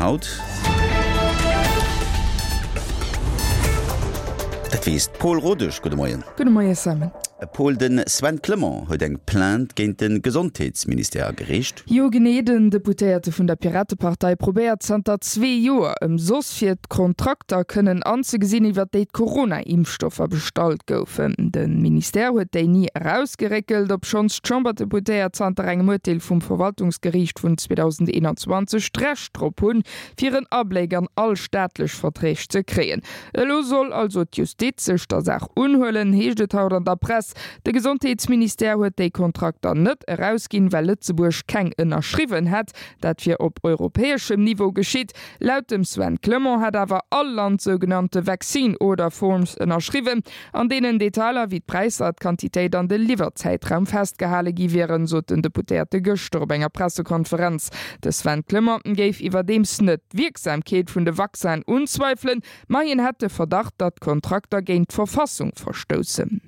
haut? Dat weess d'Paul Rodesch. Gudde Moien. Gudde Moie Simon. Paul, de Sven Clement huet eng Plainte géint de Gesondheetsministère agereecht. Jo genee, den Deputéierte vun der Piratepartei probéiert zanter zwee Joer ëmsoss fir d'Kontrakter kënnen anzegesinn, iwwer déi d'Corona-Impfstoffer bestallt goufen. De Ministère huet déi ni erausgeréckelt, obschonns d'Chamberdeputéiert zanter engem Urteel vum Verwaltungsgeriicht vun 2021 d'Recht drop hunn, fir en Abléck an all staatlech Verträg ze kréien. Elo soll also d'Justiz sech der Saach unhuelen, heescht et haut an der Press. De Gesondheetsministère huet déi Kontrakter net erausginn, well Lëtzebuerg keng ënnerschriwwen hätt. Dat wier op europäeschem Niveau geschitt. Laut dem Sven Clement hätt awer all Land sougenannte Vaccine Order Forms ënnerschriwwen, an deenen Detailer wéi d'Präisser, d'Quantitéit an de Liwwerzäitraum festgehale gi wieren, sot den Deputéierte gëschter op enger Pressekonferenz. De Sven Clement géif iwwerdeems net d'Wierksamkeet vun de Vaccinen unzweifelen, ma hien hätt de Verdacht, datt d'Kontrakter géint d'Verfassung verstoussen.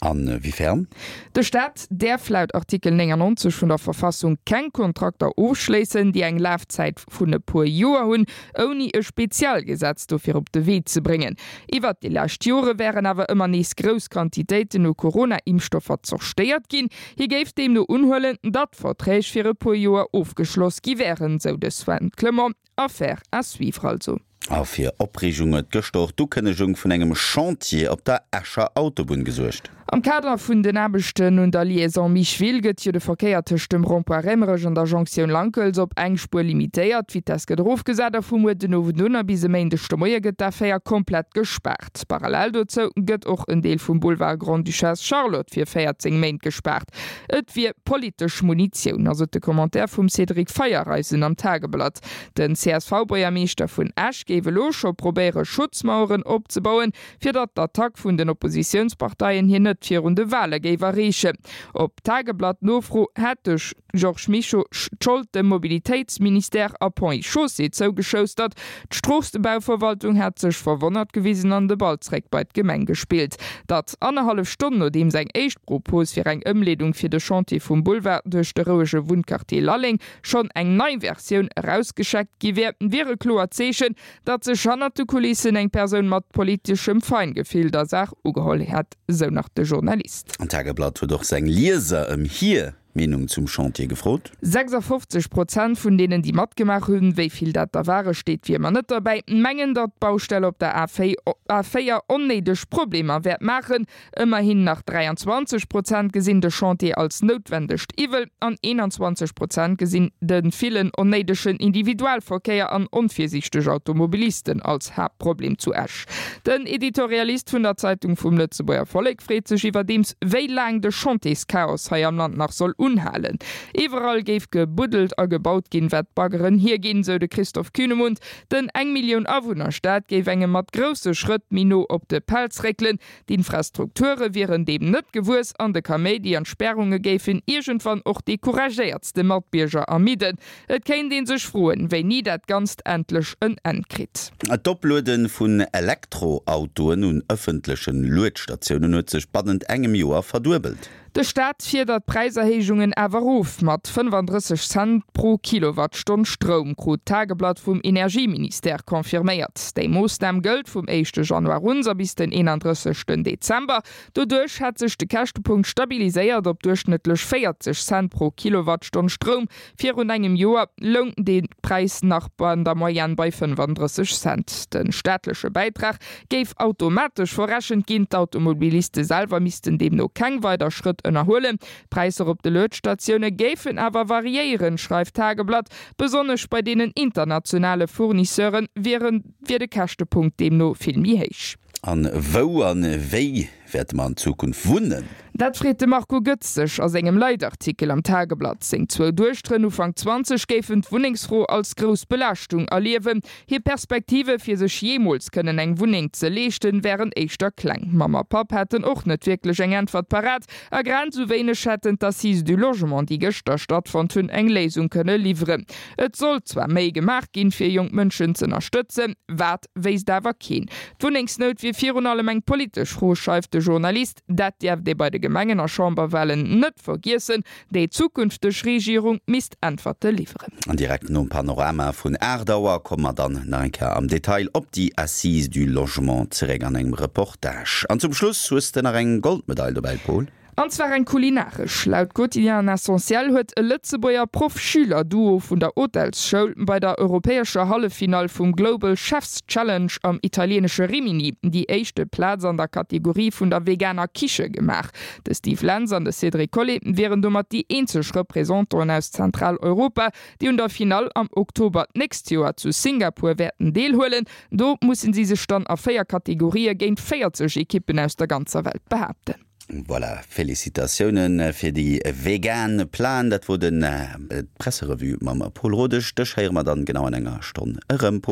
A wéifern? De Staat däerf laut Artikel 99 vun der Verfassung keng Kontrakter ofschléissen, déi eng Lafzäit vun e puer Joer hunn, ouni e Spezialgesetz dofir op de Wee ze bréngen. Iwwert déi lescht Jore wären awer ëmmer nees grouss Quantitéiten u Corona-Impfstoffer zerstéiert ginn. Hie géif deemno unhuelen, datt Verträg fir e puer Joer ofgeschloss gi wären, sou de Sven Clement. Affaire à suivre also. A fir Opreegung huet gëschter och d'Ukënnegung vun engem Chantier op der Escher Autobunn gesuergt. Am Kader vun den Aarbechten un der Liaison Micheville gëtt jo de Verkéier tëscht dem Rond-point Raemerech an der Jonktioun Lankels op eng Spuer limitéiert. D'Vitess gëtt erofgesat a vu muer den Owend un a bis e Méindeg de Moie gëtt d'A4 komplett gespaart. Parallel dozou gëtt och en Deel vum Boulevard Grande-Duchesse Charlotte fir 14 Méint gespaart. Et wier politesch Munitioun, ass et de Commentaire vum Cédric Feiereisen am Tageblatt. Den CSV-Buergermeeschter vun Esch géif elo scho probéiere Schutzmaueren opzebauen, fir datt d'Attack vun den Oppositiounsparteien hien net virun de Wale géif erreechen. Op Tageblatt-Nofro hätt de Georges Mischo d'Schold dem Mobilitéitsministère a Ponts et Chaussées zougeschoustert. D'Stroossebauverwaltung hätt sech verwonnert gewisen an de Ball zréck bei d'Gemeng gespillt. Datt annerhallef Stonn nodeems eng éischt Propos fir eng Ëmleedung fir de Chantier vum Boulevard duerch de rouege Wunnquartier Lalleng schonn eng nei Versioun erausgescheckt gi wär, wier e kloert Zeechen, datt sech hannert de Kulissen eng Persoun mat politeschem Feingefill der Saach ugeholl hätt, sou nach de Journalist. An d'Tageblatt huet och seng Lieser ëm hir Meenung zum Chantier gefrot. 56 Prozent vun deenen, déi matgemaach hunn, wéi vill dat der ware steet wéi ëmmer net derbäi, mengen, datt d'Baustell op der A4 onnéideg Problemer wäert maachen. Ëmmerhin nach 23 Prozent gesinn de Chantier als noutwendegt Iwwel an 21 Prozent gesinn de villen onnéidegen Individualverkéier an onvirsiichteg Automobilisten als Haaptproblem zu Esch. Den Editorialist vun der Zeitung vum Lëtzebuerger Vollek freet sech iwwerdeems, wéi laang de Chantierschaos hei am Land nach soll unhalen. Iwwerall géif gebuddelt a gebaut ginn, wat d'Baggeren hierginn, sou de Christoph Kühnemund. Den eng Millioun Awunner-Staat géif engem mat grousse Schrëtt méi no op de Pelz réckelen. D'Infrastrukture wieren deem net gewuess an de Kaméidi an d'Spärunge géifen iergendwann och déi couragéiertste Matbierger ermidden. Et kéint ee sech froen, wéini dat Ganzt endlech en Enn kritt. D'Opluede vun Elektroautoen un ëffentleche Luedstatiounen huet sech bannent engem Joer verduebelt. De Staat fiedert d'Präiserhéijungen awer erof. Mat 35 Cent pro Kilowattstonn Stroum, krut d'Tageblatt vum Energieministère confirméiert. Déi Moossnam gëllt vum éischte Januar un a bis den 31 Dezember. Doduerch hätt sech de Käschtepunkt stabiliséiert op duerchschnëttlech 40 Cent pro Kilowattstonn Stroum. Virun engem Joer loung dee Präis nach an der Moyenne bei 35 Cent. De staatleche Bäitrag géif automatesch verrechent ginn, d'Automobiliste selwer missten deemno keng weider Schrëtt ënnerhuelen. D'Präisser op de Luedstatioune géifen awer variéieren, schreift d'Tageblatt. Besonnesch bei deenen internationale Fournisseure wier de Käschtepunkt deemno vill méi héich. An wou an wéi wäerte mer an Zukunft wunnen? Dat freet de Marco Goetz sech a sengem Leitartikel am Tageblatt. Seng zwou Duechteren, Ufank 20, géifen d'Wunnengsfro als grouss Belaaschtung erliewen. Hir Perspektive fir sech jeemools kënnen eng Wunneng ze leeschten, wären éischter kleng. Mamm a Papp hätten och net wierklech eng Äntwert parat a grad esou wéineg hätten d'Assises du Logement, déi gëschter stattfonnt hunn, eng Léisung kënne liwweren. Et sollt zwar méi gemaach ginn, fir jonk Mënschen z'ënnerstëtzen, wat wéisst awer keen. D'Wunnengsnout wier virun allem eng politesch Fro, schreift de. Journalist, Dat dierft ee bei de Gemengen a Chamberwalen net vergiessen. Déi zukünfteg Regierung misst Äntwerte liwweren. An direkt nom Panorama vun 8 Auer komme mer dann nach eng Kéier am Detail op déi Assises du Logement zeréck an engem Reportage. An zum Schluss hues de nach eng Goldmedail dobäi, Paul? An zwar eng kulinaresch. Laut Quotidien Essentiel huet e Lëtzebuerger Proff-Schüler-Duo vun der Hotelsschoul bei der europäescher Halleffinall vum Global Chefs Challenge am italieenesche Rimini déi éischte Plaz an der Kategorie vun der veganer Kiche gemaach. De Steve Lentz an de Cédric Collet wieren domat déi eenzeg Representanten aus Zentraleuropa, déi un der Finall am Oktober d'nächst Joer zu Singapur wäerten deelhuelen. Do mussen si sech dann a 4 Kategorië géint 40 Ekippen aus der ganzer Welt behaapten. Voilà, Félicitatiounen fir déi vegan Plan. Dat wor den d'Presserevue mam Paul Rodesch. Dech héiere mer dann genau an enger Stonn erëm.